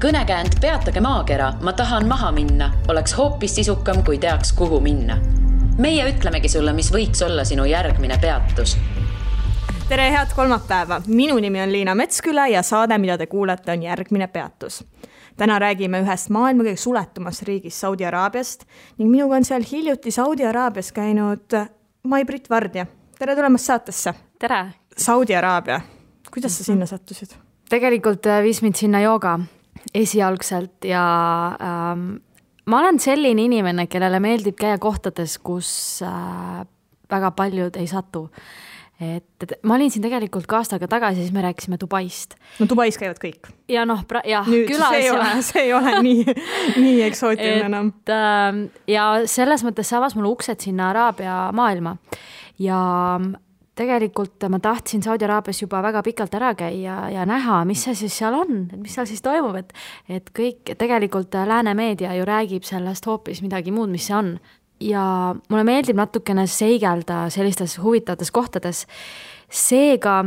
Kõnekäänd Peatage maakera, ma tahan maha minna, oleks hoopis sisukam, kui teaks, kuhu minna. Meie ütlemegi sulle, mis võiks olla sinu järgmine peatus. Tere, head kolmapäeva! Minu nimi on Liina Metsküla ja saade, mida te kuulete, on järgmine peatus. Täna räägime ühest maailma kõige suletumast riigist Saudi Araabiast ning minuga on seal hiljuti Saudi Araabias käinud Mai-Brit Vardja. Tere tulemast saatesse! Tere! Saudi Araabia. Kuidas sa sinna sattusid? Tegelikult viis mind sinna jooga esialgselt ja ma olen selline inimene, kellele meeldib käia kohtades, kus väga paljud ei satu. Ma olin siin tegelikult ka aastaga tagasi, siis me rääkisime Dubaist. No Dubais käivad kõik. Ja nüüd külas. See ei ole nii eksootiline enam. Ja selles mõttes see avas mulle uksed sinna Araabia maailma. Ja tegelikult ma tahtsin Saudi Araabias juba väga pikalt ära käia ja näha, mis see siis seal on, mis seal siis toimub, et kõik tegelikult lääne meedia ju räägib sellest hoopis midagi muud, mis see on. Ja mulle meeldib natukene seigelda sellistes huvitavates kohtades. Seega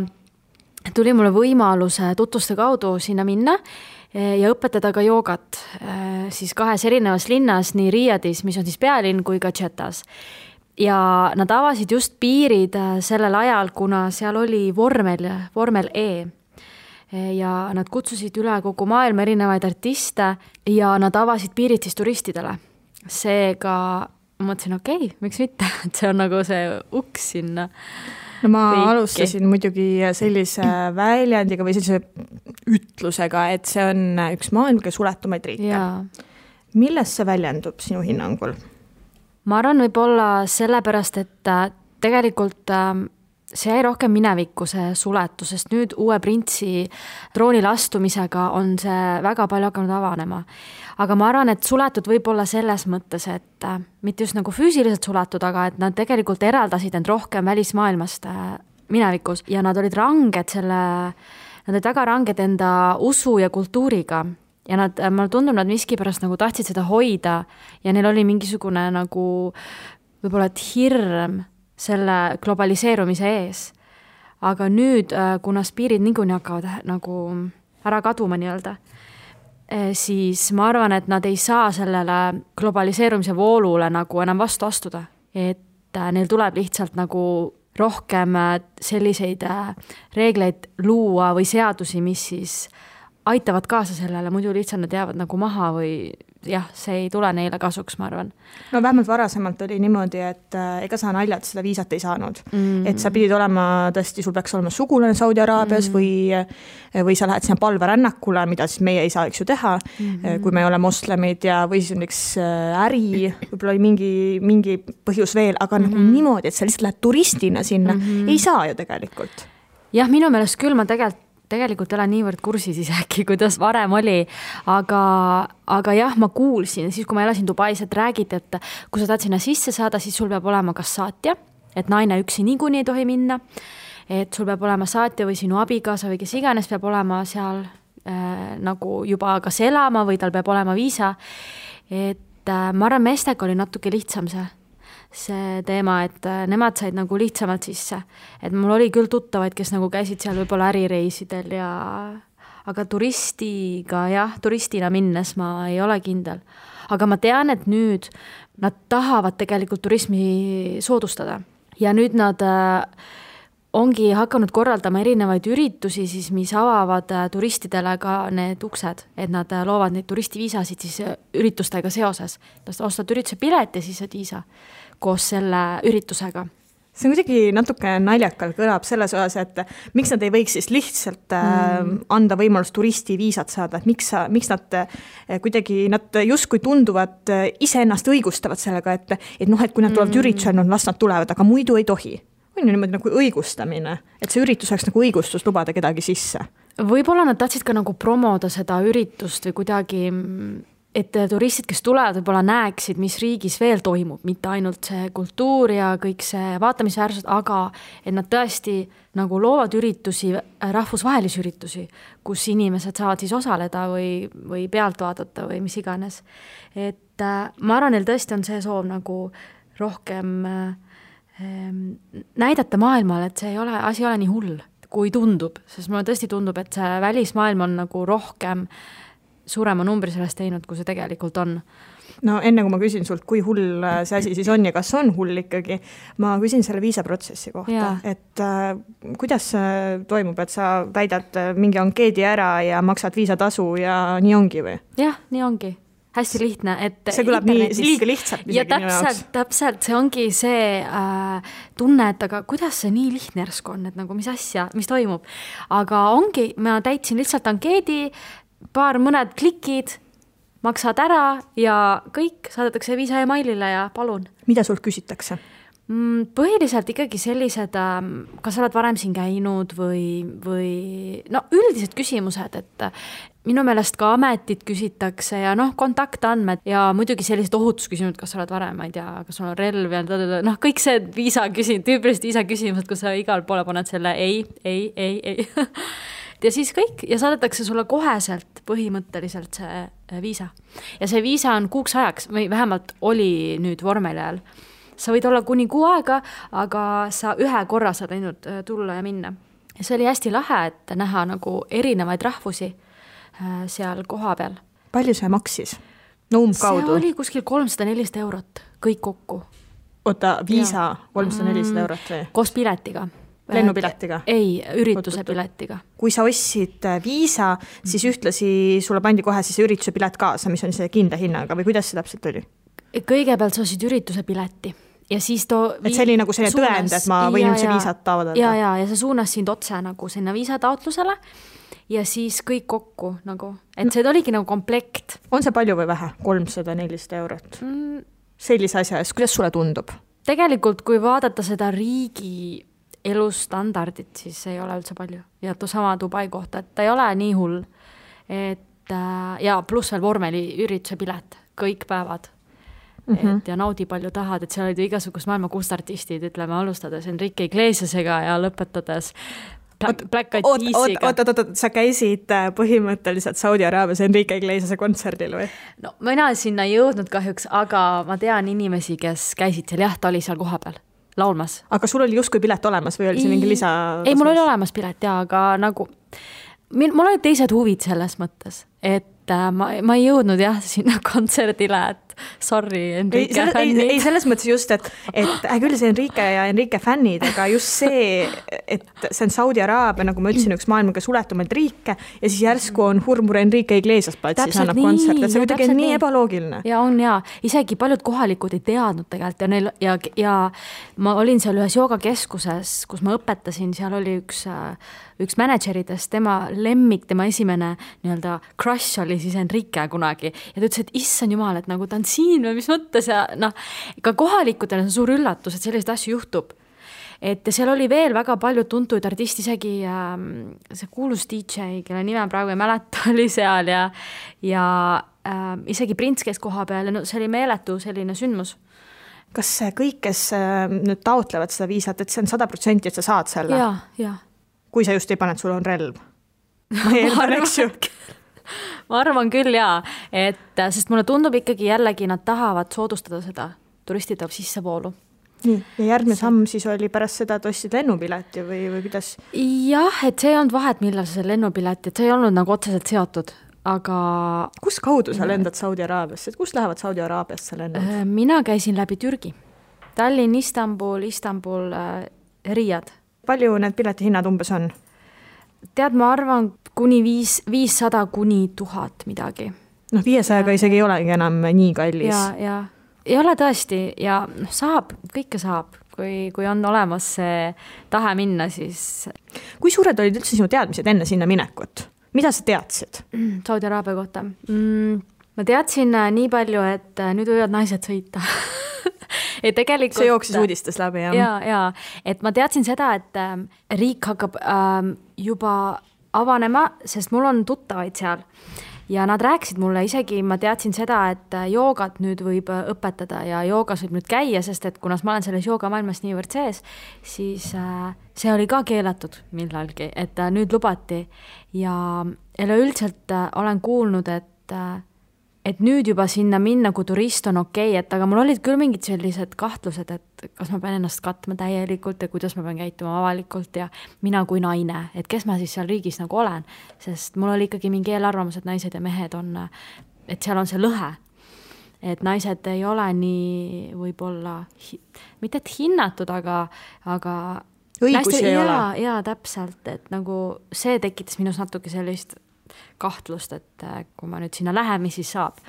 tuli mulle võimaluse tutvuste kaudu sinna minna ja õpetada ka joogat siis kahes erinevas linnas, nii Riyadis, mis on siis pealinn, kui ka Jeddas. Ja nad avasid just piirid sellel ajal, kuna seal oli vormel E. Ja nad kutsusid üle kogu maailma erinevaid artiste ja nad avasid piirid siis turistidele. Seega ma mõtlesin, okei, miks mitte, et see on nagu see uks sinna. No ma alustasin muidugi sellise väljendiga või sellise ütlusega, et see on üks maailma kõige suletumaid riike. Ja. Milles see väljendub sinu hinnangul? Ma arvan võib-olla sellepärast, et tegelikult see jäi rohkem minevikku see suletus, sest nüüd uue printsi troonile astumisega on see väga palju hakanud avanema. Aga ma arvan, et suletud võib olla selles mõttes, et mitte just nagu füüsiliselt suletud, aga et nad tegelikult eraldasid end rohkem välismaailmast minevikus ja nad olid ranged nad olid väga ranged enda usu ja kultuuriga. Ja mulle tundub, nad miskipärast nagu tahtsid seda hoida ja neil oli mingisugune nagu võib-olla hirm selle globaliseerumise ees. Aga nüüd, kuna spiirid niikuinii hakkavad nagu ära kaduma nii-öelda, siis ma arvan, et nad ei saa sellele globaliseerumise voolule nagu enam vastu astuda. Et neil tuleb lihtsalt nagu rohkem selliseid reegleid luua või seadusi, mis siis aitavad kaasa sellele, muidu lihtsalt nad jäävad nagu maha või jah, see ei tule neile kasuks, ma arvan. No vähemalt varasemalt oli niimoodi, et ega sa naljalt seda viisat ei saanud. Et sa pidid olema, tõesti, sul peaks olema sugulane Saudi Araabias või sa lähed sinna palverännakule, mida siis meie ei saa eks ju teha, kui me ei ole moslemid ja või siis on üks äri, võib-olla oli mingi põhjus veel, aga nagu niimoodi, et sa lihtsalt lähed turistina sinna, ei saa ju tegelikult. Jah, minu meelest küll ma tegelikult olen niivõrd kursis isegi, kuidas varem oli, aga jah, ma kuulsin, siis kui ma elasin Dubais, et räägid, et kui sa tahad sinna sisse saada, siis sul peab olema kas saatja, et naine üksi niikuinii ei tohi minna, et sul peab olema saatja või sinu abigaasa või kes iganes peab olema seal nagu juba kas elama või tal peab olema viisa, et ma arvan, meestega oli natuke lihtsam see teema, et nemad said nagu lihtsamalt sisse. Et mul oli küll tuttavaid, kes nagu käisid seal võib-olla ärireisidel aga turistina minnes ma ei ole kindel. Aga ma tean, et nüüd nad tahavad tegelikult turismi soodustada. Ja nüüd nad ongi hakanud korraldama erinevaid üritusi, siis, mis avavad turistidele ka need uksed, et nad loovad neid turistiviisasid siis üritustega seoses. Ostad ürituse pilet ja siis saad viisa koos selle üritusega. See kuidagi natuke naljakal kõlab selles osas, et miks nad ei võiks siis lihtsalt anda võimalust turistiviisat saada, et miks nad kuidagi, nad justkui tunduvad iseennast õigustavad sellega, et kui nad tulevad üritusel, las nad tulevad, aga muidu ei tohi. On ju niimoodi nagu õigustamine, et see üritus oleks nagu õigustus lubada kedagi sisse. Võib-olla nad tahtsid ka nagu promoda seda üritust või kuidagi, et turistid, kes tulevad, võib-olla näeksid, mis riigis veel toimub, mitte ainult see kultuur ja kõik see vaatamisväärsus, aga et nad tõesti nagu loovad üritusi, rahvusvahelisi üritusi, kus inimesed saavad siis osaleda või pealt vaadata või mis iganes. Et ma arvan, neil tõesti on see soov nagu rohkem näidata maailmale, et asi ei ole nii hull, kui tundub, sest mulle tõesti tundub, et see välismaailm on nagu rohkem suurema numbri sellest teinud, kui see tegelikult on. No enne kui ma küsin sult, kui hull see asi siis on ja kas on hull ikkagi, ma küsin selle viisaprotsessi kohta, et kuidas see toimub, et sa täidad mingi ankeedi ära ja maksad viisatasu ja nii ongi või? Jah, nii ongi. Hästi lihtne, et see kõlab nii liiga lihtsalt. Ja täpselt, see ongi see tunne, et aga kuidas see nii lihtne järsku on, et nagu mis asja, mis toimub. Aga ongi, ma täitsin lihtsalt ankeedi, mõned klikid, maksad ära ja kõik, saadetakse viisa emailile ja palun. Mida sult küsitakse? Põhiliselt ikkagi sellised, kas sa oled varem siin käinud või no üldised küsimused, et minu meelest ka ametit küsitakse ja kontaktandmed ja muidugi sellised ohutusküsimused, kas sa oled varem, ma ei tea, kas sul on relv ja kõik see tüüpiliselt viisa küsimused, kus sa igal poole paned selle ei. Ja siis kõik ja saadetakse sulle koheselt põhimõtteliselt see viisa. Ja see viisa on kuuks ajaks, või vähemalt oli nüüd vormel ajal. Sa võid olla kuni 6 aega, aga sa ühe korra saad ainult tulla ja minna. Ja see oli hästi lahe, et näha nagu erinevaid rahvusi seal koha peal. Palju see maksis? No umbkaudu? See oli kuskil 300-400 eurot, kõik kokku. Oota, viisa 300-400 eurot või? Koos piletiga. Lennupiletiga? Ei, ürituse piletiga. Kui sa ostsid viisa, siis ühtlasi sulle pandi kohe siis ürituse pilet kaasa, mis on see kindla hinnaga või kuidas see täpselt oli? Kõigepealt sa ostsid ürituse pileti. Ja siis et see oli nagu selline tõend, et ma võin üldse viisat taotleda. Ja see suunas sind otse nagu sinna viisataotlusele ja siis kõik kokku nagu, et see oligi nagu komplekt. On see palju või vähe? 300-400 eurot? Sellise asja eest, kuidas sulle tundub? Tegelikult, kui vaadata seda riigi elustandardit, siis ei ole üldse palju. Ja sama Dubai kohta, et ta ei ole nii hull. Ja pluss veel vormeli ürituse pilet, kõik päevad. Et ja naudi palju tahad, et seal olid igasugust maailma kustartistid, ütleme, alustades Enrique Iglesiasega ja lõpetades Black Eyed Peasiga. Oot, sa käisid põhimõtteliselt Saudi Araabias Enrique Iglesiase kontserdil või? No mina sinna ei jõudnud kahjuks, aga ma tean inimesi, kes käisid seal, jah, ta oli seal koha peal laulmas. Aga sul oli justkui pilet olemas või oli see mingi lisa? Ei, mul oli olemas pilet, ja, aga nagu mul olid teised huvid selles mõttes, et ma ei jõudnud jah sinna kontserdile, et sorry, Enrique fännid. Ei, selles mõttes just, et küll see Enrique ja Enrique fännid, aga just see, et see on Saudi Araabia, nagu ma ütlesin, üks maailmaga suletumaid riike ja siis järsku on hurmur Enrique Iglesias platsis annab kontsert, et see kuidagi on nii ebaloogiline. Ja on ja, isegi paljud kohalikud ei teadnud tegelikult ja ma olin seal ühes joogakeskuses, kus ma õpetasin, seal oli üks manageridest, tema lemmik, tema esimene nii-öelda crush oli siis Enrique kunagi ja ta ütles, et issand jumal, et nagu ta on siin või mis mõttes ja ka kohalikudel on suur üllatus, et selliseid asju juhtub. Et seal oli veel väga palju tuntuid artisti, isegi see kuulus DJ, kelle nime praegu ei mäleta, oli seal ja isegi prints käis koha peal ja see oli meeletu selline sündmus. Kas kõik, kes nüüd taotlevad seda viisat, et see on 100%, et sa saad selle? Ja. Kui sa just ei pane, et sul on relv? Ma ei eeldan, eks ju. Ma arvan küll, jaa. Sest mulle tundub ikkagi jällegi, nad tahavad soodustada seda turistide sissevoolu. Nii, ja järgmine samm siis oli pärast seda, et ostsid lennupileti või kuidas? Jah, et see ei olnud vahet, millal see lennupileti, et see ei olnud nagu otseselt seotud, aga... Kus kaudu sa lendad Saudi Araabiasse? Kus lähevad Saudi Araabiasse lennad? Mina käisin läbi Türgi. Tallinn, Istanbul, Riyad. Palju need piletihinnad umbes on? Tead, ma arvan kuni 500 kuni 1000 midagi. 500-ga isegi ei olegi enam nii kallis. Ja. Ei ole tõesti ja saab, kõike saab, kui on olemas see tahe minna, siis... Kui suured olid üldse sinu teadmised enne sinna minekut? Mida sa teadsid? Saudi Araabia kohta. Ma teadsin nii palju, et nüüd võivad naised sõita. Tegelikult, see jooksis uudistes läbi, jah? Ja, et ma teadsin seda, et riik hakkab juba avanema, sest mul on tuttavaid seal ja nad rääkisid mulle isegi, ma teadsin seda, et joogat nüüd võib õpetada ja joogas võib nüüd käia, sest et kunas ma olen selles joogamaailmas niivõrd sees, siis see oli ka keelatud millalgi, et nüüd lubati ja üleüldiselt olen kuulnud, et nüüd juba sinna minna, kui turist on okei, et aga mul olid küll mingid sellised kahtlused, et kas ma pean ennast katma täielikult ja kuidas ma pean käituma avalikult ja mina kui naine, et kes ma siis seal riigis nagu olen, sest mul oli ikkagi mingi eelarvamus, et naised ja mehed on, et seal on see lõhe, et naised ei ole nii võib-olla, mitte et hinnatud, aga õigusi ei ole. Jaa, täpselt, et nagu see tekitas minus natuke sellist kahtlust, et kui ma nüüd sinna lähen, mis siis saab.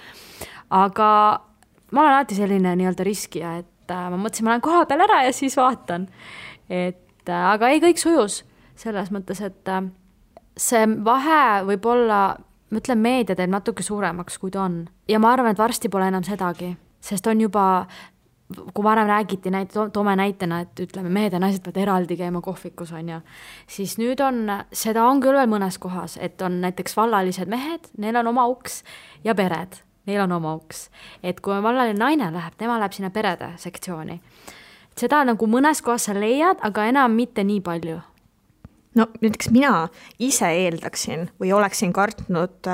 Aga ma olen alati selline nii-öelda riskija, et ma mõtlesin, ma lähen koha peal ära ja siis vaatan. Aga ei, kõik sujus selles mõttes, et see vahe võib olla, ma ütlen, meedia teeb natuke suuremaks, kui ta on. Ja ma arvan, et varsti pole enam sedagi, sest on juba, kui varem räägiti, toome näitena, et ütleme, mehed ja naised peavad eraldi käima kohvikus, on ju, siis nüüd on, seda on küll veel mõnes kohas, et on näiteks vallalised mehed, neil on oma uks ja pered, neil on oma uks. Et kui vallaline naine läheb, tema läheb sinna perede sektsiooni. Seda nagu mõnes kohas sa leiad, aga enam mitte nii palju. No näiteks mina ise eeldaksin või oleksin kartnud,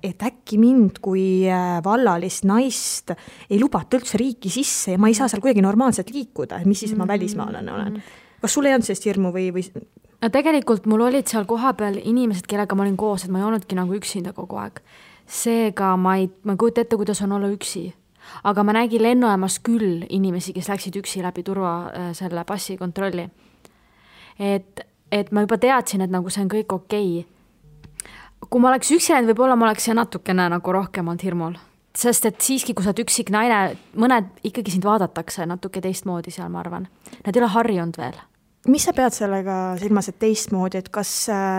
et äkki mind kui vallalist naist ei lubata üldse riiki sisse ja ma ei saa seal kuidagi normaalselt liikuda, mis siis ma välismaalane olen. Kas sul ei olnud sellist hirmu või? No tegelikult mul olid seal kohapeal inimesed, kellega ma olin koos, et ma ei olnudki nagu üksinda kogu aeg. Seega ma kujuta ette, kuidas on olla üksi. Aga ma nägin lennujaamas küll inimesi, kes läksid üksi läbi turva selle passi kontrolli. Et ma juba teadsin, et nagu see on kõik okei. Kui ma oleks üksi läinud, võib-olla ma oleks natukene nagu rohkem olnud hirmul. Sest et siiski, kui sa oled üksik naine, mõned ikkagi sind vaadatakse natuke teistmoodi seal, ma arvan. Nad ei ole harjunud veel. Mis sa pead sellega silmas, et teistmoodi, et kas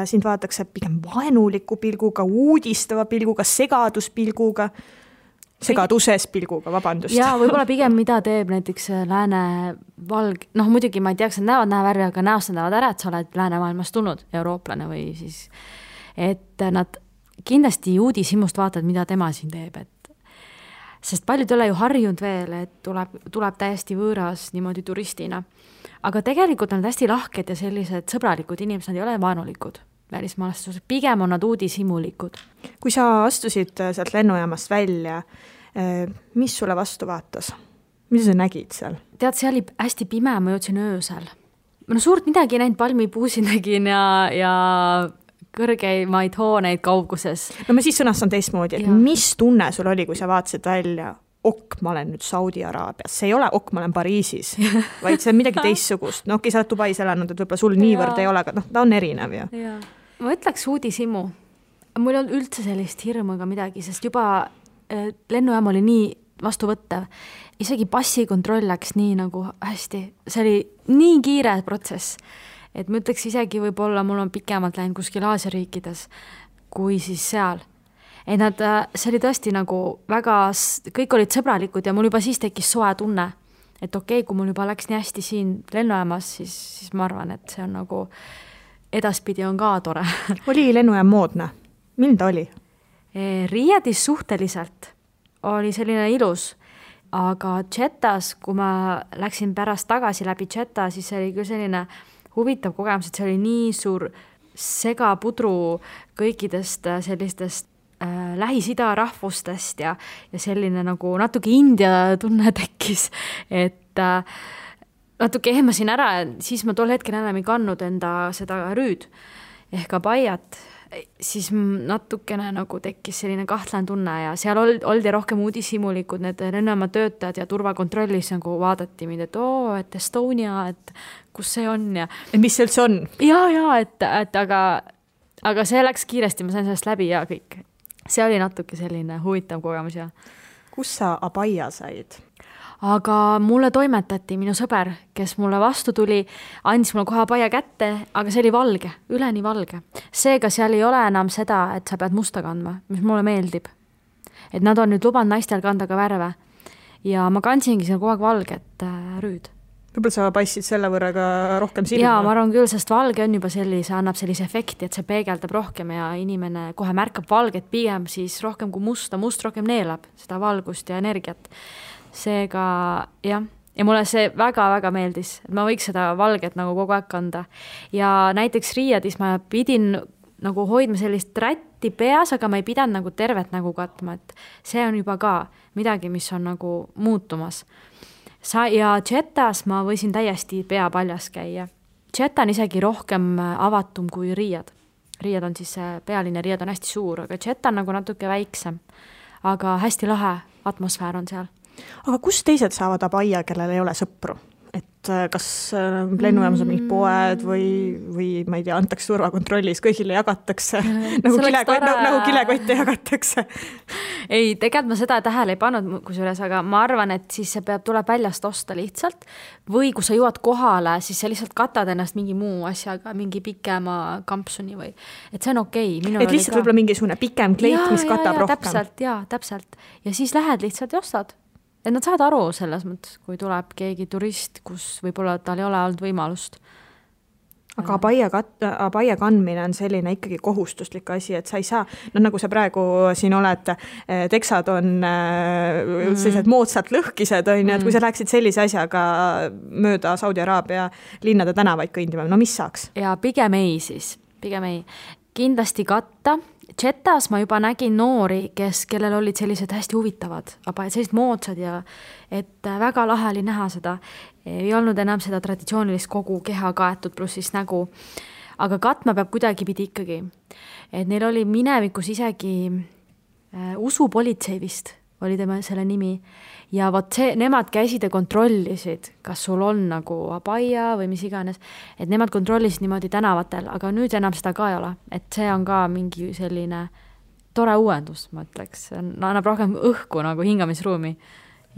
sind vaadatakse pigem vaenuliku pilguga, uudistava pilguga, segaduspilguga? Segaduses pilguga, vabandust. Jaa, võib-olla pigem mida teeb näiteks lääne valg, muidugi ma ei tea, kas nad näevad näevärvi, aga näost näevad ära, et sa oled läänemaailmast tulnud eurooplane või siis, et nad kindlasti uudishimust vaatavad, mida tema siin teeb, sest paljud ei ole ju harjunud veel, et tuleb täiesti võõras niimoodi turistina. Aga tegelikult on nad hästi lahked ja sellised sõbralikud inimesed, nad ei ole vaenulikud välismaalastused, pigem on nad uudishimulikud. Kui sa astusid sealt lennujaamast välja, mis sulle vastu vaatas? Mida sa nägid seal? Tead, see oli hästi pime, ma jõudsin öösel. Suurt midagi näinud, palmipuusi nägin ja kõrgeimaid hooneid kauguses. No ma siis sõnastan teistmoodi, et mis tunne sul oli, kui sa vaatasid välja? Ma olen nüüd Saudi Araabias, see ei ole ma olen Pariisis, vaid see on midagi teistsugust. No sa oled Dubais elanud, et võib-olla sul niivõrd ei ole, aga ta on erinev ju. Ma ütleks uudishimu. Mul on üldse sellist hirmu ega midagi, sest juba lennujaam oli nii vastuvõttev. Isegi passikontroll läks nii nagu hästi. See oli nii kiire protsess, et ma ütleks isegi võib-olla mul on pikemalt läinud kuskil Aasia riikides kui siis seal. Et see oli tõesti nagu väga, kõik olid sõbralikud ja mul juba siis tekkis soe tunne, et okei, kui mul juba läks nii hästi siin lennujaamas, siis ma arvan, et see on nagu edaspidi on ka tore. Oli lennujaam moodne? Milline ta oli? Riiadis suhteliselt oli selline ilus, aga Jeddas, kui ma läksin pärast tagasi läbi Jedda, siis see oli küll selline huvitav kogemus, et see oli nii suur segapudru kõikidest sellistest Lähis-Ida rahvustest ja selline nagu natuke India tunne tekkis, et natuke ehmasin ära ja siis ma tol hetkel enam ei kannud enda seda rüüd ehk abaiat, siis natukene nagu tekkis selline kahtlane tunne ja seal oldi rohkem uudishimulikud, need lennujaama töötajad ja turvakontrollis nagu vaadati mind, et Estonia, et kus see on ja mis see üldse on? Ja, et aga see läks kiiresti, ma sain sellest läbi ja kõik. See oli natuke selline huvitav kogemus ja. Kus sa abaia said? Aga mulle toimetati minu sõber, kes mulle vastu tuli, andis mulle kohe abaia kätte, aga see oli valge, üleni valge. Seega seal ei ole enam seda, et sa pead musta kandma, mis mulle meeldib. Et nad on nüüd lubanud naistel kanda ka värve. Ja ma kandsingi seal kogu aeg valget rüüd. Võib-olla sa paistsid selle võrra ka rohkem silma? Jaa, ma arvan küll, sest valge on juba annab sellise efekti, et see peegeldab rohkem ja inimene kohe märkab valget pigem siis rohkem kui musta. Must rohkem neelab seda valgust ja energiat. Seega, jah. Ja mulle see väga-väga meeldis, et ma võiks seda valget nagu kogu aeg kanda. Ja näiteks Riiadis ma pidin nagu hoidma sellist rätti peas, aga ma ei pidanud nagu tervet nägu katma, et see on juba ka midagi, mis on nagu muutumas. Ja Jetas ma võisin täiesti pea paljas käia. Jeta on isegi rohkem avatum kui Riiad. Riiad on siis pealine, Riiad on hästi suur, aga Jeta on nagu natuke väiksem. Aga hästi lahe atmosfäär on seal. Aga kus teised saavad Abaia, kellel ei ole sõpru? Et kas lennujaamas on mingid poed või ma ei tea, antakse turvakontrollis, kõigile jagatakse, nagu kilekotte jagatakse. Ei, tegelikult ma seda tähele ei pannud kusjuures, aga ma arvan, et siis see tuleb väljast osta lihtsalt või kui sa jõuad kohale, siis sa lihtsalt katad ennast mingi muu asjaga, mingi pikema kampsuni või, et see on okei. Et lihtsalt võib-olla mingisugune pikem kleit, mis katab rohkem. Täpselt. Ja siis lähed lihtsalt ja ostad. Et nad saavad aru selles mõttes, kui tuleb keegi turist, kus võib-olla tal ei ole olnud võimalust. Aga Abaia kandmine on selline ikkagi kohustuslik asi, et sa ei saa, nagu sa praegu siin oled, teksad on sellised moodsalt lõhkised, on, et kui sa läheksid sellise asjaga mööda Saudi Araabia linnade tänavaid kõndima, no mis saaks? Ja pigem ei. Kindlasti katta. Jetas ma juba nägin noori, kellel olid sellised hästi huvitavad, aga sellised moodsad ja et väga lahe oli näha seda. Ei olnud enam seda traditsioonilist kogu keha kaetud pluss siis nägu. Aga katma peab kuidagi pidi ikkagi. Et neil oli minevikus isegi usupolitsei vist oli tema selle nimi. Ja nemad käisid ja kontrollisid, kas sul on nagu Abaia või mis iganes, et nemad kontrollisid niimoodi tänavatel, aga nüüd enam seda ka ei ole, et see on ka mingi selline tore uuendus, ma ütleks, annab rohkem õhku nagu hingamisruumi.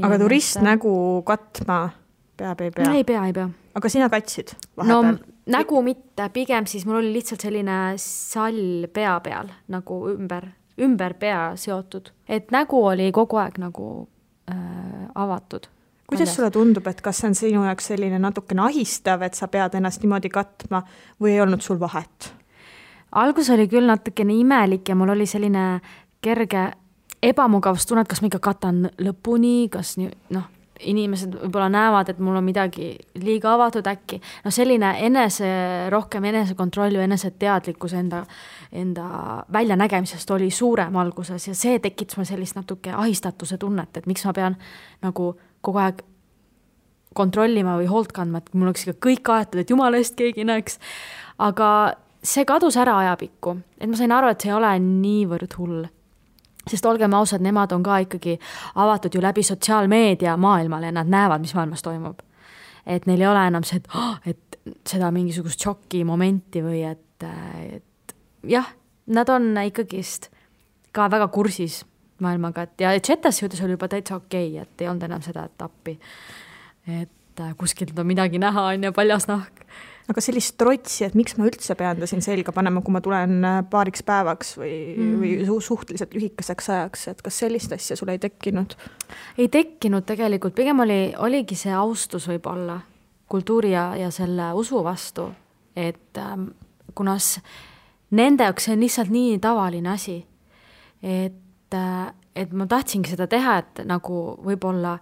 Aga turist nägu katma peab, ei pea? Ei pea. Aga sina katsid vahepeal? No nägu mitte, pigem siis mul oli lihtsalt selline sall pea peal, nagu ümber pea seotud, et nägu oli kogu aeg nagu avatud. Kuidas sulle tundub, et kas see on sinu jaoks selline natukene ahistav, et sa pead ennast niimoodi katma või ei olnud sul vahet? Algus oli küll natukene imelik ja mul oli selline kerge ebamugavustunne, et kas ma ikka katan lõpuni, kas inimesed võib-olla näevad, et mul on midagi liiga avatud äkki. No selline rohkem enesekontroll või eneseteadlikkus enda väljanägemisest oli suurem alguses ja see tekitas mul sellist natuke ahistatuse tunnet, et miks ma pean nagu kogu aeg kontrollima või hoolt kandma, et mul oleks ikka kõik aetud, et jumala eest keegi näeks. Aga see kadus ära ajapikku, et ma sain aru, et see ei ole niivõrd hull. Sest olgem ausad, nemad on ka ikkagi avatud ju läbi sotsiaalmeedia maailmale ja nad näevad, mis maailmas toimub. Et neil ei ole enam see, et seda mingisugust šokki momenti või et jah, nad on ikkagist ka väga kursis maailmaga. Ja Jetas juhtus oli juba täitsa okei, et ei olnud enam seda etappi. Et kuskilt on midagi näha, on ja paljas nahk. Aga sellist trotsi, et miks ma üldse pean ta siin selga panema, kui ma tulen paariks päevaks või suhteliselt lühikeseks ajaks, et kas sellist asja sul ei tekkinud? Ei tekkinud tegelikult, pigem oligi see austus võib-olla kultuuri ja selle usu vastu, et kuna nende jaoks see on lihtsalt nii tavaline asi, et ma tahtsingi seda teha, et nagu võib-olla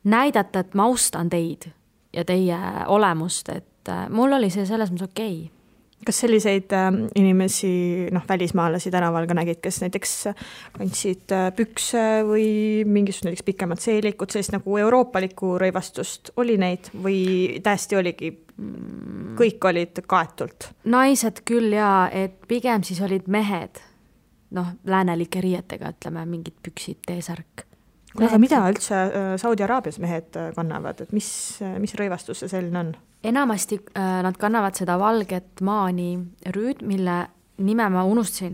näidata, et ma austan teid ja teie olemust, et mul oli see selles mõttes okei. Kas selliseid inimesi, välismaalasi tänaval ka nägid, kes näiteks kandsid pükse või mingisugust näiteks pikemat seelikut, sellist nagu euroopalikku rõivastust oli neid või täiesti oligi, kõik olid kaetult? Naised küll ja, et pigem siis olid mehed, läänelike riietega, ütleme, mingid püksid, teesärk. Aga mida üldse Saudi Araabias mehed kannavad, et mis rõivastus see selline on? Enamasti nad kannavad seda valget maani rüüd, mille nime ma unustasin.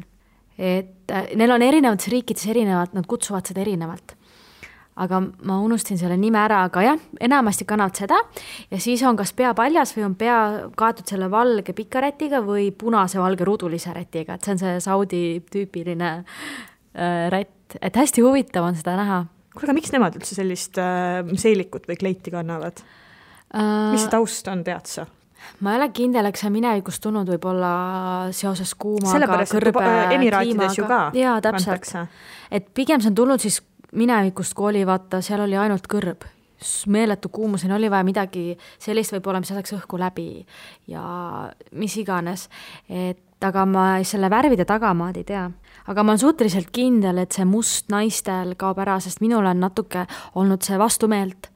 Et neil on erinevates riikides erinevad, nad kutsuvad seda erinevalt. Aga ma unustasin selle nime ära, aga jah, enamasti kannavad seda ja siis on kas pea paljas või on pea kaetud selle valge pika rätiga või punase valge rudulise rätiga, et see on see Saudi tüüpiline rätt, et hästi huvitav on seda näha. Kuule, miks nemad üldse sellist seelikut või kleiti kannavad? Mis see taust on, tead sa? Ma ei ole kindel, eks see minevikust tulnud võib-olla seoses kuumaga, sellepärast, kõrbe Emiraatides ju ka. Jaa, täpselt. Et pigem see on tulnud siis minevikust, kui oli, vaata, seal oli ainult kõrb. Meeletu kuumuseni oli vaja midagi sellist võib-olla, mis saaks õhku läbi ja mis iganes. Et aga ma selle värvide tagamaad ei tea. Aga ma olen suhteliselt kindel, et see must naistel kaob ära, sest minul on natuke olnud see vastumeelt,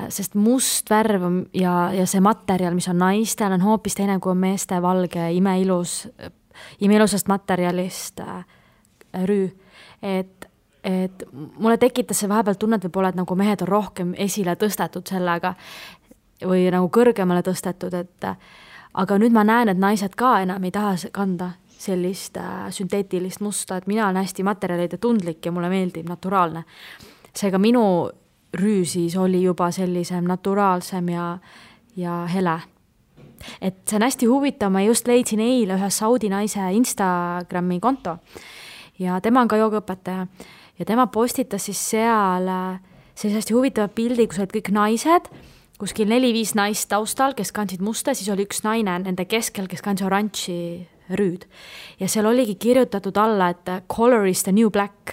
sest must värv ja see materjal, mis on naistel, on hoopis teine kui meeste valge, imeilusast materjalist rüü. Et mulle tekitas see vahepeal tunnet võib-olla, et nagu mehed on rohkem esile tõstetud sellega või nagu kõrgemale tõstetud, aga nüüd ma näen, et naised ka enam ei taha kanda sellist sünteetilist musta, et mina olen hästi materjalide tundlik ja mulle meeldib naturaalne. Seega minu rüü siis oli juba sellisem naturaalsem ja hele. Et see on hästi huvitav, ma just leidsin eile ühe saudi naise Instagrami konto ja tema on ka joogaõpetaja ja tema postitas siis seal sellise hästi huvitava pildi, kus olid kõik naised, kuskil 4-5 naist taustal, kes kandsid musta, siis oli üks naine nende keskel, kes kandis oranži rüüd. Ja seal oligi kirjutatud alla, et color is the new black.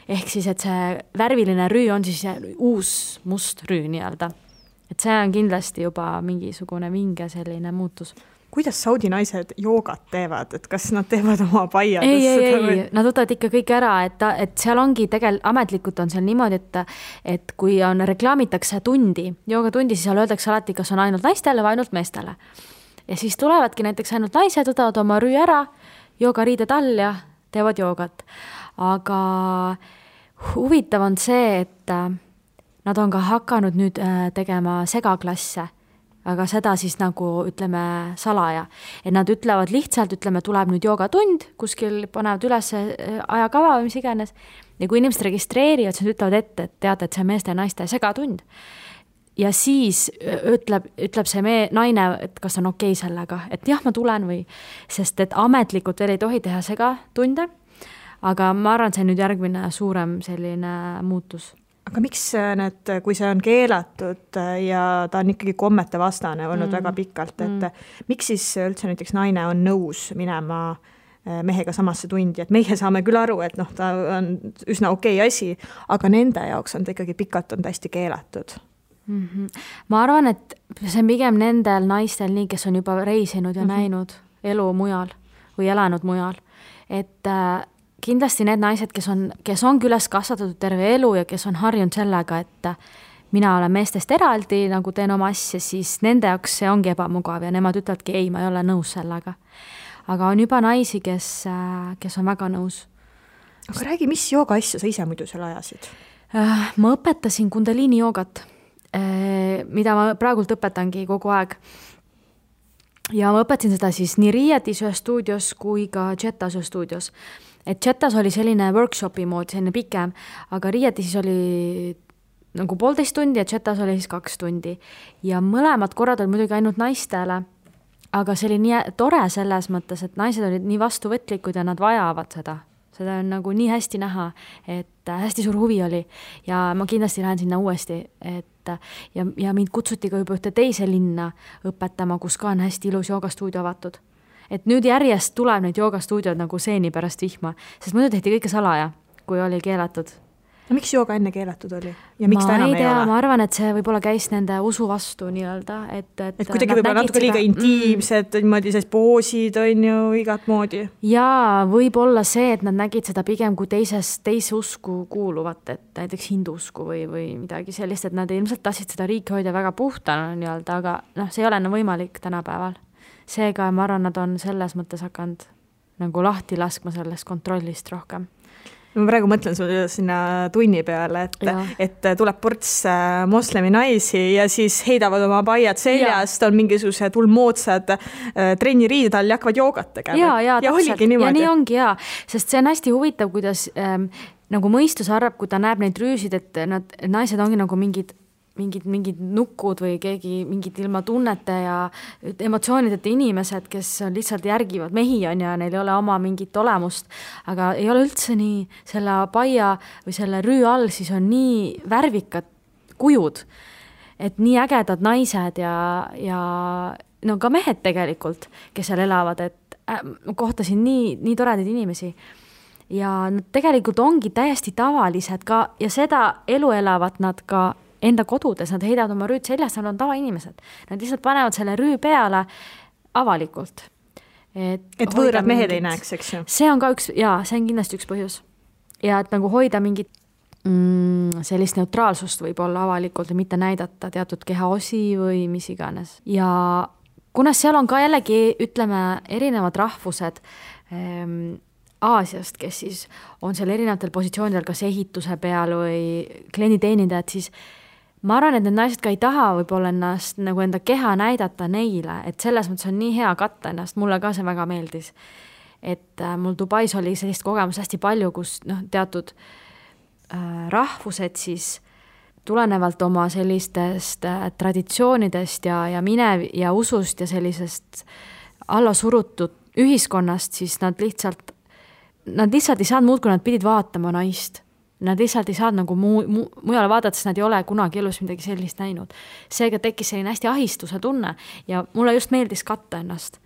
Ehk siis, et see värviline rüü on siis uus must rüü nii-öelda. Et see on kindlasti juba mingisugune vinge selline muutus. Kuidas saudi naised joogat teevad? Et kas nad teevad oma paiadesse? Ei, nad võtavad ikka kõik ära, et seal ongi ametlikult on seal niimoodi, et kui reklaamitakse joogatundi, siis seal öeldakse alati, kas on ainult naistele või ainult meestele. Ja siis tulevadki näiteks ainult naised, võtavad oma rüü ära, joogariided all ja teevad joogat. Aga huvitav on see, et nad on ka hakanud nüüd tegema segaklasse, aga seda siis nagu ütleme salaja. Et nad ütlevad lihtsalt, tuleb nüüd joogatund, kuskil panevad üles ajakava või mis iganes. Ja kui inimesed registreerivad, siis ütlevad ette, et teate, et see meeste ja naiste segatund. Ja siis ütleb see naine, et kas on okei sellega, et jah, ma tulen või, sest et ametlikult veel ei tohi teha segatunde, aga ma arvan, see on nüüd järgmine suurem selline muutus. Aga miks kui see on keelatud ja ta on ikkagi kommete vastane olnud väga pikalt, et miks siis üldse näiteks naine on nõus minema mehega samasse tundi, et meie saame küll aru, et ta on üsna okei asi, aga nende jaoks on ta ikkagi pikalt on hästi keelatud. Ma arvan, et see on pigem nendel naistel nii, kes on juba reisinud ja näinud elu mujal või elanud mujal. Et kindlasti need naised, kes on üles kasvatatud terve elu ja kes on harjunud sellega, et mina olen meestest eraldi, nagu teen oma asja, siis nende jaoks see ongi ebamugav ja nemad ütlevadki, ei, ma ei ole nõus sellega. Aga on juba naisi, kes on väga nõus. Aga räägi, mis jooga asja sa ise muidu seal ajasid? Ma õpetasin kundaliini joogat, mida ma praegult õpetangi kogu aeg. Ja ma õpetasin seda siis nii Riietis ühes stuudios kui ka Jetas ühes stuudios. Et Jetas oli selline workshopi moodi, selline pikem, aga Riietis oli nagu 1,5 tundi ja Jetas oli siis 2 tundi. Ja mõlemad korrad oli muidugi ainult naistele, aga see oli nii tore selles mõttes, et naised olid nii vastuvõtlikud ja nad vajavad seda. Seda on nagu nii hästi näha, et hästi suur huvi oli ja ma kindlasti lähen sinna uuesti, ja mind kutsuti ka juba ühte teise linna õpetama, kus ka on hästi ilus joogastuudio avatud. Et nüüd järjest tuleb neid joogastuudiod nagu seeni pärast vihma, sest muidu tehti kõike salaja, kui oli keelatud. No miks jooga enne keelatud oli? Ja miks ta enam ei ole? Ma arvan, et see võib-olla käis nende usu vastu nii-öelda. Et kuidagi võib-olla natuke liiga intiimsed, niimoodi sest poosid on ju igat moodi. Ja võib-olla see, et nad nägid seda pigem kui teise usku kuuluvat, et näiteks hindusku või midagi sellist, et nad ilmselt tahtsid seda riiki hoida väga puhtana nii-öelda, aga see ei ole enam võimalik tänapäeval. Seega ma arvan, nad on selles mõttes hakanud nagu lahti laskma sellest kontrollist rohkem. Ma praegu mõtlen sulle sinna tunni peale, et tuleb ports moslemi naisi ja siis heidavad oma paiad seljast, on mingisugused ulmoodsad trenniriided all ja hakkavad joogat tegema. Ja oligi niimoodi. Ja nii ongi, sest see on hästi huvitav, kuidas nagu mõistus arvab, kui ta näeb neid rüüsid, et naised ongi nagu mingid nukud või keegi mingid ilma tunnete ja emotsioonideta inimesed, kes lihtsalt järgivad mehi on ja neil ei ole oma mingit olemust, aga ei ole üldse nii. Selle paia või selle rüü all siis on nii värvikad kujud, et nii ägedad naised ja no ka mehed tegelikult, kes seal elavad, et kohtasin nii toredaid inimesi. Ja nad tegelikult ongi täiesti tavalised ka ja seda elu elavad nad ka enda kodudes, nad heidavad oma rüüd seljast, nad on tavainimesed. Nad lihtsalt panevad selle rüü peale avalikult. et võõrad mehed ei näeks, eks ju? See on ka see on kindlasti üks põhjus. Ja et nagu hoida mingit sellist neutraalsust võib-olla avalikult ja mitte näidata teatud kehaosi või mis iganes. Ja kuna seal on ka jällegi, ütleme, erinevad rahvused Aasiast, kes siis on seal erinevatel positsioonidel, kas ehituse peal või klienditeenindajad, siis ma arvan, et need naised ka ei taha võib-olla ennast nagu enda keha näidata neile, et selles mõttes on nii hea katta ennast, mulle ka see väga meeldis. Et mul Dubais oli sellist kogemus hästi palju, kus teatud rahvused siis tulenevalt oma sellistest traditsioonidest ja usust ja sellisest allasurutud ühiskonnast, siis nad lihtsalt ei saanud muud, kui nad pidid vaatama naist. Nad lihtsalt ei saanud nagu mujale vaadata, sest nad ei ole kunagi elus midagi sellist näinud. Seega tekkis selline hästi ahistuse tunne ja mulle just meeldis katta ennast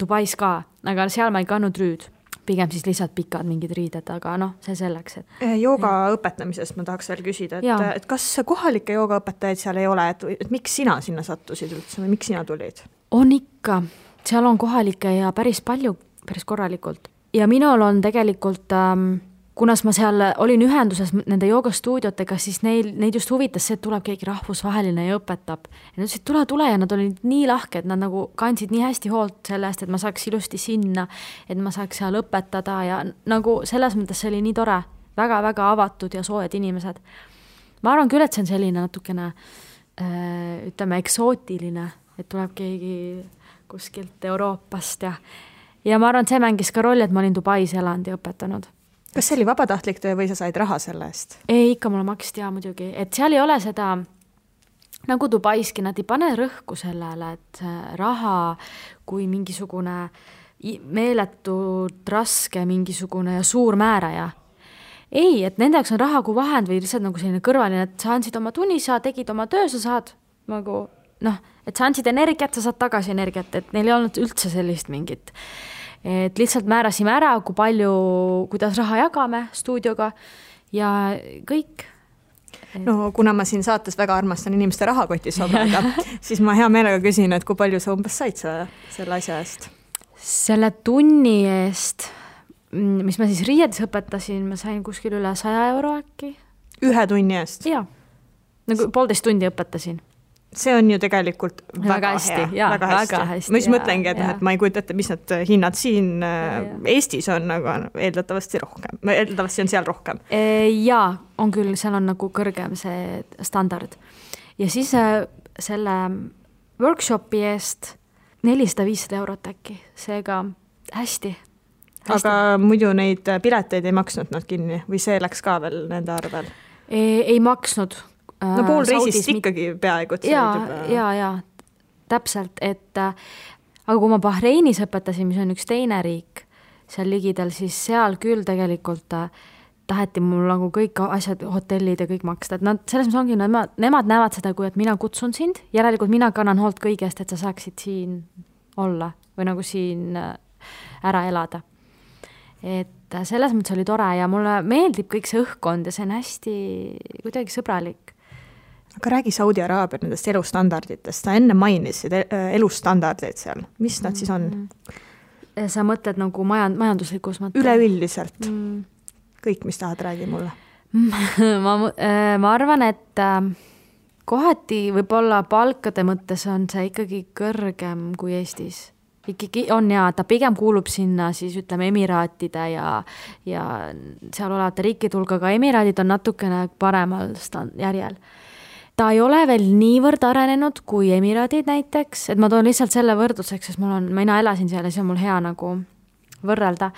Dubais ka, aga seal ma ei kannud rüüd. Pigem siis lihtsalt pikad mingid riided, aga see selleks. Jooga õpetamisest ma tahaks veel küsida, et kas kohalikke joogaõpetajaid seal ei ole, et miks sina sinna sattusid üldse või miks sina tulid? On ikka, seal on kohalikke ja päris palju, päris korralikult. Ja minul on tegelikult, kunas ma seal olin ühenduses nende joogastuudiotega, siis neid just huvitas see, et tuleb keegi rahvusvaheline ja õpetab. Ja nad ütlesid, tule ja nad olid nii lahked, nad nagu kandsid nii hästi hoolt sellest, et ma saaks ilusti sinna, et ma saaks seal õpetada ja nagu selles mõttes see oli nii tore, väga-väga avatud ja soojad inimesed. Ma arvan küll, et see on selline natukene, ütleme, eksootiline, et tuleb keegi kuskilt Euroopast ja ma arvan, et see mängis ka rolli, et ma olin Dubais elanud ja õpetanud. Kas see oli vabatahtlik töö või sa said raha selle eest? Ei, ikka mulle maksti muidugi, et seal ei ole seda, nagu Dubaiski, nad ei pane rõhku sellele, et raha kui mingisugune meeletult raske mingisugune ja suur määraja. Ei, et nende jaoks on raha kui vahend või lihtsalt nagu selline kõrvaline, et sa andsid oma tunni, sa tegid oma töö, sa saad nagu, et sa andsid energiat, sa saad tagasi energiat, et neil ei olnud üldse sellist mingit. Et lihtsalt määrasime ära, kui palju, kuidas raha jagame stuudioga ja kõik. No kuna ma siin saates väga armastan inimeste rahakotis obrada, siis ma hea meelega küsin, et kui palju sa umbes said selle asja eest? Selle tunni eest, mis ma siis Riiedes õpetasin, ma sain kuskil üle 100 euro äkki. Ühe tunni eest? Jaa, nagu 1,5 tundi õpetasin. See on ju tegelikult väga hästi, hea. Väga hästi. Ma just mõtlengi, et ma ei kujuta ette, mis need hinnad siin Eestis on, aga eeldatavasti rohkem. Eeldatavasti on seal rohkem. Jaa, on küll, seal on nagu kõrgem see standard. Ja siis selle workshopi eest 400-500 eurot äkki, seega hästi. Aga muidu neid pileteid ei maksnud nad kinni või see läks ka veel nende arvel? Ei maksnud. No pool reisist ikkagi peaaegu. Ja, täpselt, et aga kui ma Bahreinis õpetasin, mis on üks teine riik seal ligidal, siis seal küll tegelikult taheti mul nagu kõik asjad, hotellid ja kõik maksta, et nad selles mõttes ongi, nemad näevad seda, kui et mina kutsun sind, järelikult mina kannan hoolt kõigest, et sa saaksid siin olla või nagu siin ära elada. Et selles mõttes oli tore ja mulle meeldib kõik see õhkkond ja see on hästi kuidagi sõbralik. Aga räägi Saudi Araabia nendest elustandarditest. Sa enne mainisid elustandardid seal. Mis nad siis on? Sa mõtled nagu majanduslikus mõttes? Üleüldiselt. Kõik, mis tahad, räägi mulle. ma arvan, et kohati võib-olla palkade mõttes on see ikkagi kõrgem kui Eestis. Ikkagi on ta pigem kuulub sinna siis ütleme Emiraatide ja seal olevate riikide hulga, aga Emiraadid on natukene paremal järjel. Ta ei ole veel niivõrd arenenud kui Emiraadid näiteks, et ma toon lihtsalt selle võrdluseks, sest mina elasin seal ja see on mul hea nagu võrrelda,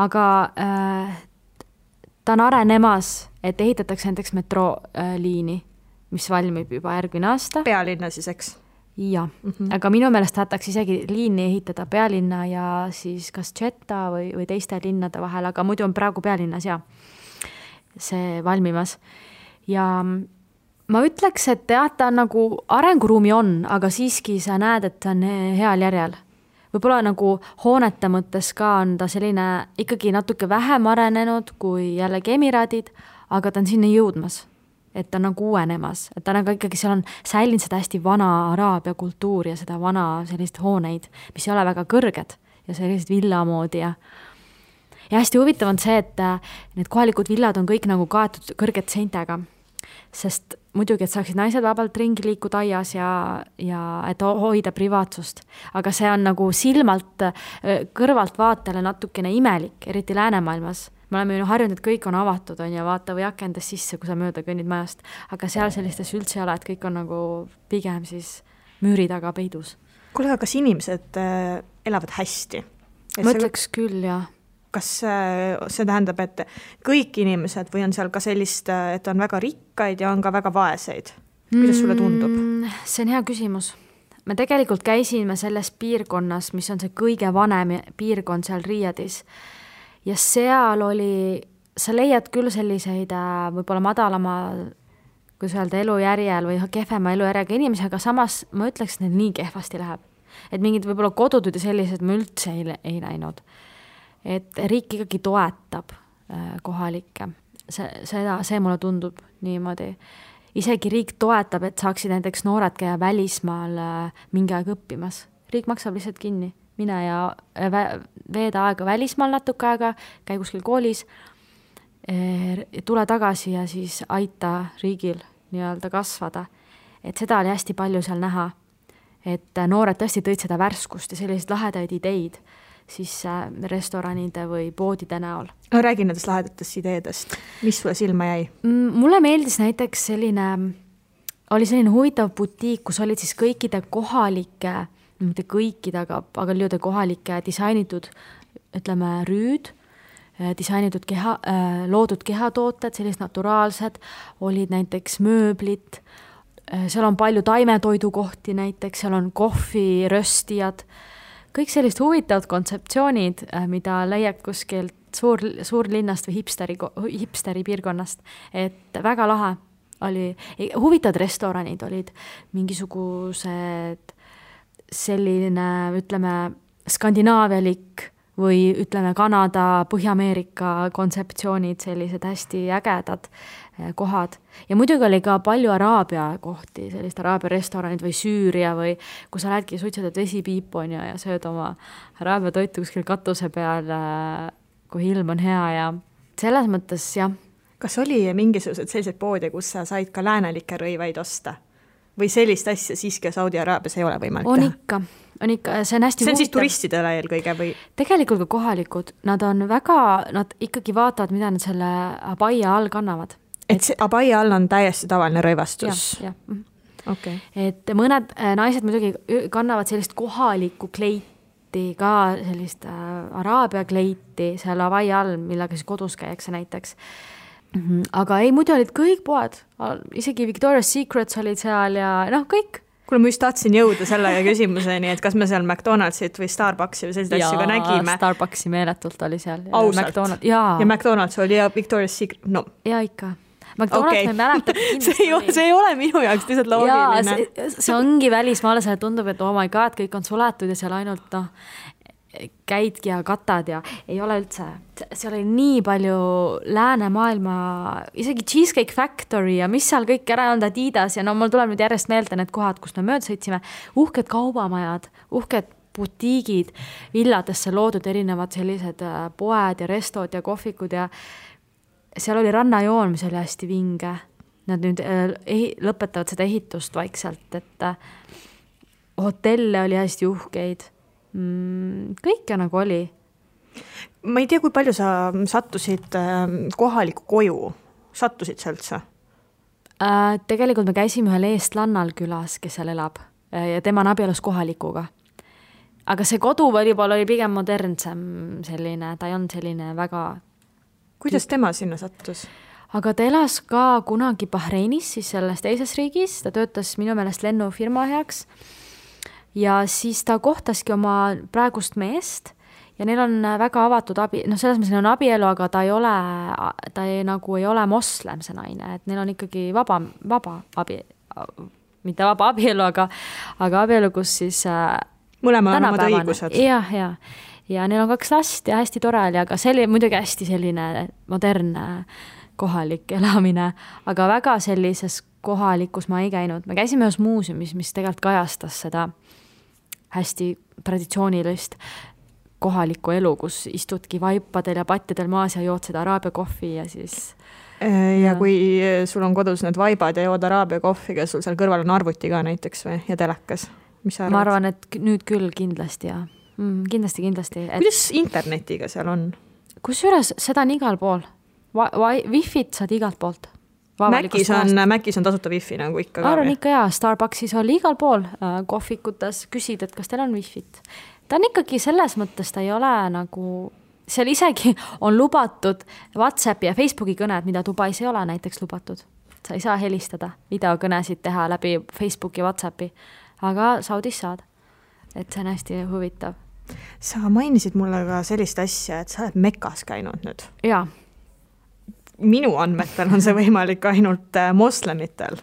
aga ta on arenemas, et ehitatakse näiteks metrooliini, mis valmib juba järgmine aasta. Pealinna siis, eks? Jah, aga minu meelest tahtaks isegi liini ehitada pealinna ja siis kas Jeddah või teiste linnade vahel, aga muidu on praegu pealinnas see valmimas. Ja ma ütleks, et ta nagu arenguruumi on, aga siiski sa näed, et ta on heal järjel. Võib-olla nagu hoonete mõttes ka on ta selline ikkagi natuke vähem arenenud kui jällegi Emiraadid, aga ta on sinna jõudmas. Et ta on nagu uuenemas, et ta nagu ikkagi seal on säilinud seda hästi vana araabia kultuur ja seda vana sellist hooneid, mis ei ole väga kõrged ja sellised villa moodi ja hästi huvitav on see, et need kohalikud villad on kõik nagu kaetud kõrgete seintega, sest muidugi, et saaksid naised vabalt ringi liikuda aias ja et hoida privaatsust. Aga see on nagu silmalt kõrvalt vaatele natukene imelik, eriti läänemaailmas. Me oleme ju harjunud, et kõik on avatud on ja vaata või akendas sisse, kui sa mööda kõnnid majast. Aga seal sellistes üldse ei ole, et kõik on nagu pigem siis müüri taga peidus. Kuule, kas inimesed elavad hästi? Ma ütleks küll, jah. Kas see tähendab, et kõik inimesed või on seal ka sellist, et on väga rikkaid ja on ka väga vaeseid? Kuidas sulle tundub? See on hea küsimus. Me tegelikult käisime selles piirkonnas, mis on see kõige vanem piirkond seal Riiadis. Ja seal oli, sa leiad küll selliseid võib-olla madalama, kui öelda, elujärjel või kehvema elujärjega inimesi, aga samas ma ütleks, et neil nii kehvasti läheb. Et mingid võib-olla kodudud ja sellised me üldse ei näinud. Et riik ikkagi toetab kohalikke. See mulle tundub niimoodi. Isegi riik toetab, et saaksid näiteks noored käia välismaal mingi aeg õppimas. Riik maksab lihtsalt kinni. Mine ja veeda aega välismaal natuke aega, käi kuskil koolis, tule tagasi ja siis aita riigil nii-öelda kasvada. Et seda oli hästi palju seal näha. Et noored tõesti tõid seda värskust ja selliseid lahedaid ideid siis restoranide või poodide näol. Räägi nendest lahedatest ideedest. Mis sulle silma jäi? Mulle meeldis näiteks oli selline huvitav butiik, kus olid siis kõikide kohalike, mitte kõikide, aga lüüde kohalike disainitud, ütleme, rüüd, disainitud loodud kehatooted, sellised naturaalsed, olid näiteks mööblit, seal on palju taimetoidukohti näiteks, seal on kohvi, röstijad, kõik sellist huvitavad kontseptsioonid, mida leiab kuskilt suurlinnast või hipsteri piirkonnast, et väga lahe oli. Huvitavad restoranid olid mingisugused selline, ütleme, skandinaavialik või ütleme Kanada, Põhja-Ameerika kontseptsioonid, sellised hästi ägedad kohad. Ja muidugi oli ka palju Araabia kohti, sellist Araabia restoranid või Süüria või kui sa lähedki suitsetad vesipiipu ja sööd oma Araabia toitu kuskil katuse peal, kui ilm on hea ja selles mõttes, jah. Kas oli mingisugused sellised poode, kus sa said ka läänelikke rõivaid osta? Või sellist asja siiski Saudi Araabias ei ole võimalik teha? On ikka, see on hästi huvitav. See on siis turistidele eelkõige või? Tegelikult ka kohalikud, nad ikkagi vaatavad, mida nad selle abaia all kannavad. Et see abaia all on täiesti tavaline rõivastus? Jah. Okay. Et mõned naised muidugi kannavad sellist kohalikku kleiti, ka sellist Araabia kleiti seal abaia all, millega siis kodus käiakse näiteks. Aga ei, muidu olid kõik poed, isegi Victoria's Secrets olid seal ja kõik. Kuule, ma just tahtsin jõuda selle küsimuseni, et kas me seal McDonaldsit või Starbucksi või sellised asju ka nägime. Starbucksi meeletult oli seal. Ausalt? Ja McDonald's oli ja Victoria's Secret, no. Ja ikka. McDonald's me mäletab see ei ole minu jaoks lihtsalt loogiline. See ongi välismaale, see tundub, et oh my god, kõik on suletud ja seal ainult käidki ja katad ja ei ole üldse. Seal oli nii palju läänemaailma, isegi Cheesecake Factory ja mis seal kõik ära on Adidas ja mul tuleb nüüd järjest meelde need kohad, kus me mööda sõitsime. Uhked kaubamajad, uhked butiigid, villadesse loodud erinevad sellised poed ja restod ja kohvikud ja seal oli rannajoon, mis oli hästi vinge. Nad nüüd lõpetavad seda ehitust vaikselt, et hotelle oli hästi uhkeid. Kõike nagu oli. Ma ei tea, kui palju sa sattusid kohaliku koju. Sattusid sa üldse? Tegelikult me käisime ühel eestlannal külas, kes seal elab ja tema on abielus kohalikuga. Aga see kodu oli pigem modernsem selline, ta ei olnud selline väga... Kuidas tema sinna sattus? Aga ta elas ka kunagi Bahreinis, siis selles teises riigis, ta töötas minu meelest lennufirma heaks ja siis ta kohtaski oma praegust meest ja neil on väga avatud selles mõttes neil on abielu, aga ta ei ole moslem see naine, et neil on ikkagi vaba mitte vaba abielu, aga abielu, kus siis mõlemal on omad õigused. Ja neil on 2 last ja hästi tore oli, aga see oli muidugi hästi selline modernne kohalik elamine, aga väga sellises kohalikus ma ei käinud. Me käisime ühes muuseumis, mis tegelikult kajastas seda hästi traditsioonilist kohalikku elu, kus istudki vaipadel ja patjadel maas ja jood seda araabia kohvi ja siis... Ja kui sul on kodus need vaibad ja jood araabia kohviga, sul seal kõrval on arvuti ka näiteks või ja telekas, mis sa arvad? Ma arvan, et nüüd küll kindlasti ja kindlasti. Et... Kuidas internetiga seal on? Kusjuures seda on igal pool. Wi-Fit saad igalt poolt. Mäkis on tasuta Wi-Fi nagu ikka ka. Arvan ikka jaa, Starbucksis oli igal pool kohvikutes küsid, et kas teil on Wi-Fit. Ta on ikkagi selles mõttes, ta ei ole nagu... Seal isegi on lubatud WhatsAppi ja Facebooki kõned, mida Dubais ei ole näiteks lubatud. Sa ei saa helistada, videokõnesid teha läbi Facebooki ja WhatsAppi, aga Saudis saad. Et see on hästi huvitav. Sa mainisid mulle ka sellist asja, et sa oled Mekas käinud nüüd. Jaa. Minu andmetel on see võimalik ainult moslemitel.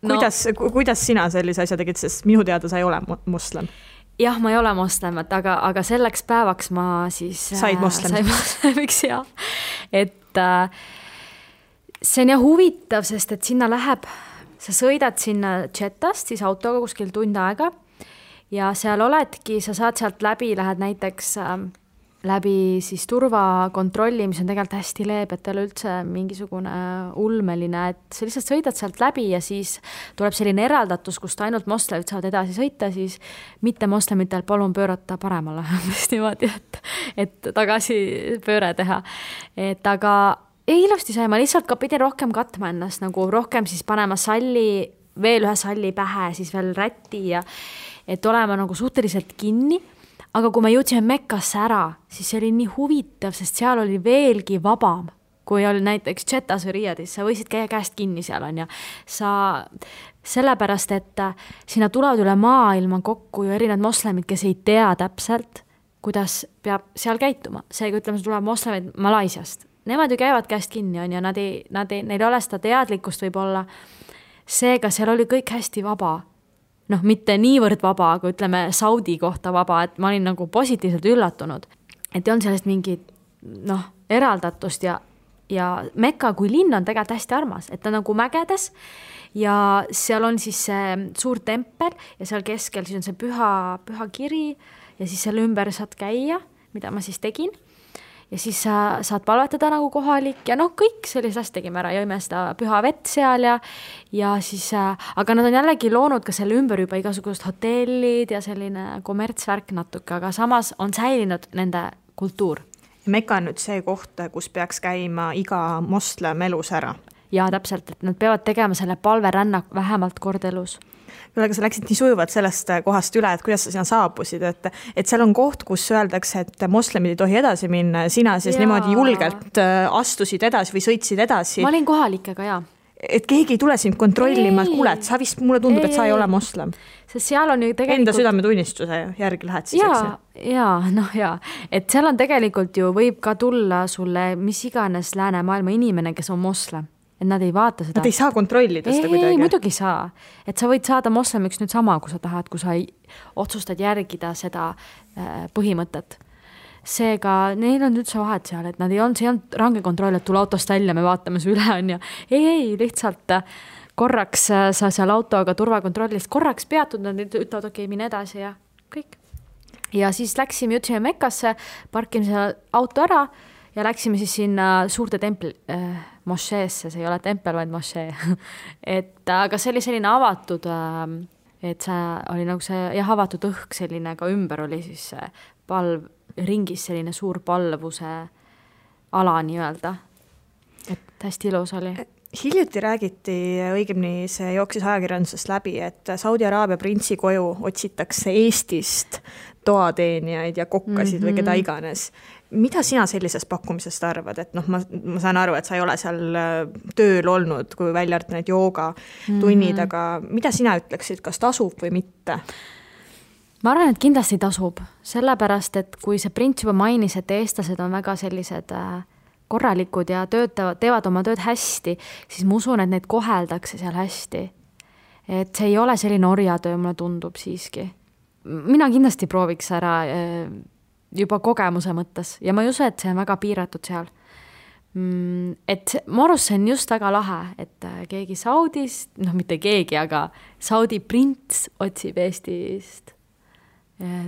Kuidas sina sellise asja tegid, sest minu teada sa ei ole moslem? Jah, ma ei ole moslemat, aga selleks päevaks ma siis... Said moslemiks, jah. Et see on huvitav, sest et sinna läheb, sa sõidad sinna Jettast, siis autoga kuskil tund aega ja seal oledki, sa saad sealt läbi, lähed näiteks läbi siis turvakontrolli, mis on tegelikult hästi leeb, et ole üldse mingisugune ulmeline, et sa lihtsalt sõidad sealt läbi ja siis tuleb selline eraldatus, kust ainult moslemid saavad edasi sõita, siis mitte moslemitel palun pöörata paremale, niimoodi, et tagasi pööre teha. Et aga ilusti sai, ma lihtsalt ka pidin rohkem katma ennast, nagu rohkem siis panema salli, veel ühe salli pähe, siis veel rätti ja et olema nagu suhteliselt kinni. Aga kui me jõudsime Mekkasse ära, siis see oli nii huvitav, sest seal oli veelgi vabam, kui oli näiteks Jettas või Riyadis, sa võisid käia käest kinni seal on ja sa sellepärast, et sinna tulevad üle maailma kokku ju erinevad moslemid, kes ei tea täpselt, kuidas peab seal käituma. Seega ütleme, see tuleb moslemid Malaisiast. Nemad ju käivad käest kinni on ja neil ei ole seda teadlikkust võib-olla. Seega seal oli kõik hästi vaba. Mitte niivõrd vaba, aga ütleme Saudi kohta vaba, et ma olin nagu positiivselt üllatunud. Et on sellest mingi eraldatust ja Mekka kui linn on tegelikult hästi armas, et ta nagu mägedes ja seal on siis see suur tempel ja seal keskel siis on see püha kiri ja siis selle ümber saad käia, mida ma siis tegin. Ja siis sa saad palvetada nagu kohalik ja kõik sellist asja tegime ära, jõime seda püha vett seal ja siis, aga nad on jällegi loonud ka selle ümber juba igasugust hotellid ja selline kommertsvärk natuke, aga samas on säilinud nende kultuur. Mekka on nüüd see koht, kus peaks käima iga moslem elus ära. Ja täpselt, et nad peavad tegema selle palverännak vähemalt kord elus. Aga sa läksid nii sujuvalt sellest kohast üle, et kuidas sa sinna saabusid, et seal on koht, kus öeldakse, et moslemid ei tohi edasi minna ja sina siis niimoodi julgelt astusid edasi või sõitsid edasi. Ma olin kohalikega, jaa. Et keegi ei tule sind kontrollima, et kuule, et sa vist mulle tundub, et sa ei ole moslem. Sest seal on ju tegelikult... Enda südametunnistuse järgi lähed siis, eks? Et seal on tegelikult ju võib ka tulla sulle mis iganes läänemaailma inimene, kes on moslem. Et nad ei vaata seda. Nad ei saa kontrollida seda kuidagi. Ei, muidugi saa. Et sa võid saada moslemiks nüüd sama, kui sa tahad, kui sa otsustad järgida seda põhimõtet. Seega, neil on üldse vahet seal, et nad ei olnud, see on range kontroll, et tule autost välja, me vaatame su üle on ja ei, lihtsalt korraks sa seal autoga turvakontrollist korraks peatud, nad ütlevad, okei, mine edasi ja kõik. Ja siis läksime, jõudsime Mekkasse, parkime seal auto ära ja läksime siis sinna suurte templi mošeesse, see ei ole tempel, vaid mošee. Aga see oli selline avatud, et see oli nagu see avatud õhk selline, ka ümber oli siis palv, ringis selline suur palvuse ala nii-öelda. Et hästi ilus oli. Hiljuti räägiti, õigemini see jooksis ajakirjandusest läbi, et Saudi Araabia printsi koju otsitakse Eestist toateenijaid ja kokkasid või keda iganes. Mida sina sellisest pakkumisest arvad? Et ma saan aru, et sa ei ole seal tööl olnud, kui välja arvata need jooga tunnid, aga mida sina ütleksid, kas tasub või mitte? Ma arvan, et kindlasti tasub, sellepärast, et kui see prints juba mainis, et eestlased on väga sellised korralikud ja teevad oma tööd hästi, siis ma usun, et neid koheldakse seal hästi. Et see ei ole selline orjatöö, mulle tundub siiski. Mina kindlasti prooviks ära juba kogemuse mõttes ja ma ei usu, et see on väga piiratud seal. Et Morus see on just väga lahe, et keegi Saudist, mitte keegi, aga Saudi prints otsib Eestist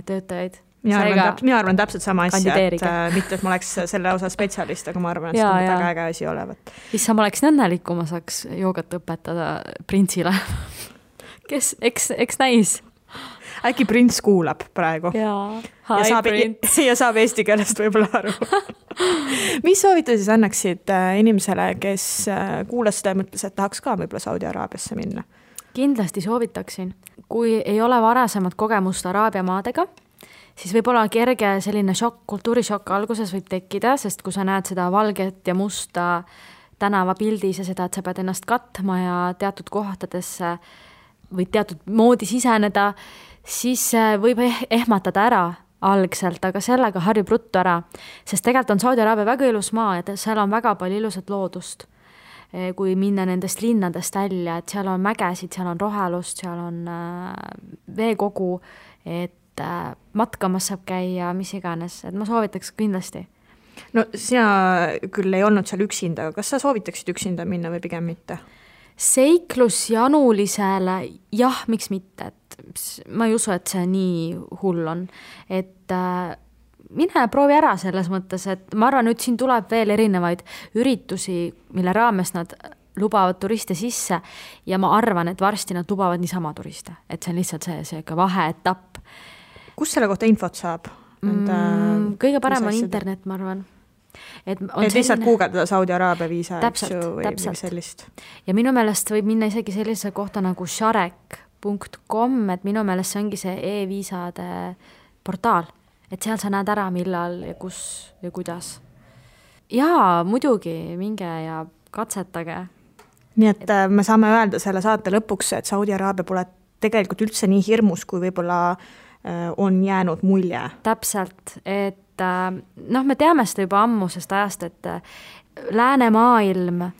töötajaid. mina arvan täpselt sama asja, et mitte, et ma oleks selle osa spetsialist, aga ma arvan, et see on väga äge asi olevat. Issa, ma oleks õnnelik, kui ma saaks joogat õpetada printsile. Kes, eks näis? Äkki prints kuulab praegu. ja saab eesti keelest võib-olla aru. Mis soovita siis annaksid inimesele, kes kuulas seda ja mõtles, et tahaks ka võib-olla Saudi Araabiasse minna? Kindlasti soovitaksin. Kui ei ole varasemat kogemust Araabia maadega, siis võib-olla kerge selline kultuurishokk alguses võib tekkida, sest kui sa näed seda valget ja musta tänavapildis ja seda, et sa pead ennast katma ja teatud kohtadesse või teatud moodi siseneda, siis võib ehmatada ära algselt, aga sellega harjub ruttu ära, sest tegelikult on Saudi Araabia väga ilus maa ja seal on väga palju ilusat loodust. Kui minna nendest linnadest välja, et seal on mägesid, seal on rohelust, seal on veekogu, et matkamas saab käia, mis iganes, et ma soovitaks kindlasti. No sina küll ei olnud seal üksinda, kas sa soovitaksid üksinda minna või pigem mitte? Seiklusjanulisele, jah, miks mitte, et ma ei usu, et see nii hull on, et mine proovi ära selles mõttes, et ma arvan, nüüd siin tuleb veel erinevaid üritusi, mille raames nad lubavad turiste sisse ja ma arvan, et varsti nad lubavad niisama turiste, et see on lihtsalt see vaheetapp. Kus selle kohta infot saab? Kõige parem on internet, ma arvan. Et lihtsalt guugeldada Saudi Araabia viisa või sellist. Ja minu meelest võib minna isegi sellise kohta nagu sharek.com, et minu meelest see ongi see e-viisade portaal. Et seal sa näed ära, millal ja kus ja kuidas. Jaa, muidugi, minge ja katsetage. Nii et me saame öelda selle saate lõpuks, et Saudi Araabia pole tegelikult üldse nii hirmus, kui võib-olla on jäänud mulje. Täpselt, et me teame seda juba ammusest ajast, et läänemaailm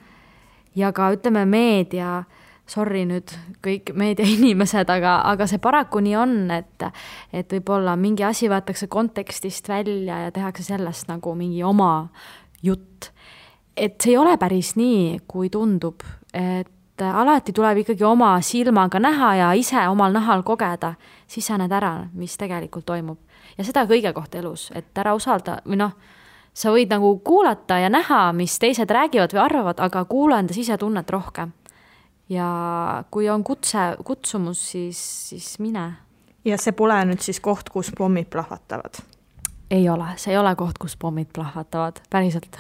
ja ka ütleme meedia, sorry nüüd kõik meedia inimesed, aga see paraku nii on, et võib-olla mingi asi võetakse kontekstist välja ja tehakse sellest nagu mingi oma jutt. Et see ei ole päris nii, kui tundub, et alati tuleb ikkagi oma silmaga näha ja ise omal nahal kogeda, siis sa näed ära, mis tegelikult toimub. Ja seda kõige kohta elus, et ära usalda, või sa võid nagu kuulata ja näha, mis teised räägivad või arvavad, aga kuula enda sisetunnet rohkem. Ja kui on kutsumus, siis mine. Ja see pole nüüd siis koht, kus pommid plahvatavad? Ei ole, see ei ole koht, kus pommid plahvatavad, päriselt.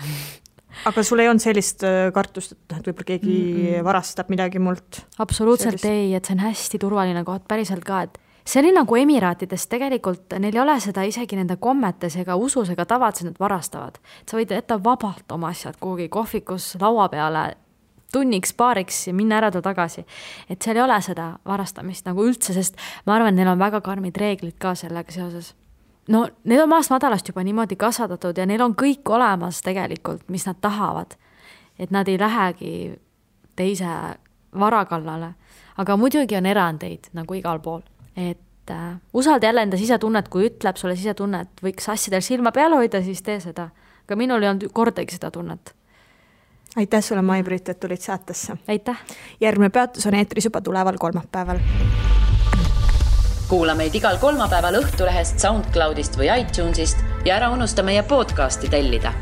Aga sul ei olnud sellist kartust, et võib-olla keegi varastab midagi mult? Absoluutselt ei, et see on hästi turvaline koht, päriselt ka, et see oli nagu Emiraatides, tegelikult neil ei ole seda isegi nende kommetes ega usus ega tavad, nad varastavad. Sa võid jätta vabalt oma asjad kuhugi kohvikus laua peale tunniks, paariks ja minna ära tagasi. Et seal ei ole seda varastamist nagu üldse, sest ma arvan, neil on väga karmid reeglid ka sellega seoses. No, need on maast madalast juba niimoodi kasvatatud ja neil on kõik olemas tegelikult, mis nad tahavad. Et nad ei lähegi teise varakallale. Aga muidugi on erandeid nagu igal pool. Et usalda jälle enda sisetunnet, kui ütleb sulle sisetunnet, võiks asjadel silma peale hoida, siis tee seda. Aga minul ei olnud kordagi seda tunnet. Aitäh sulle, Mai-Brit, et tulid saatesse. Aitäh. Järgmine peatus on eetris juba tuleval kolmapäeval. Kuula meid igal kolmapäeval Õhtulehest, SoundCloudist või iTunesist ja ära unusta meie podcasti tellida.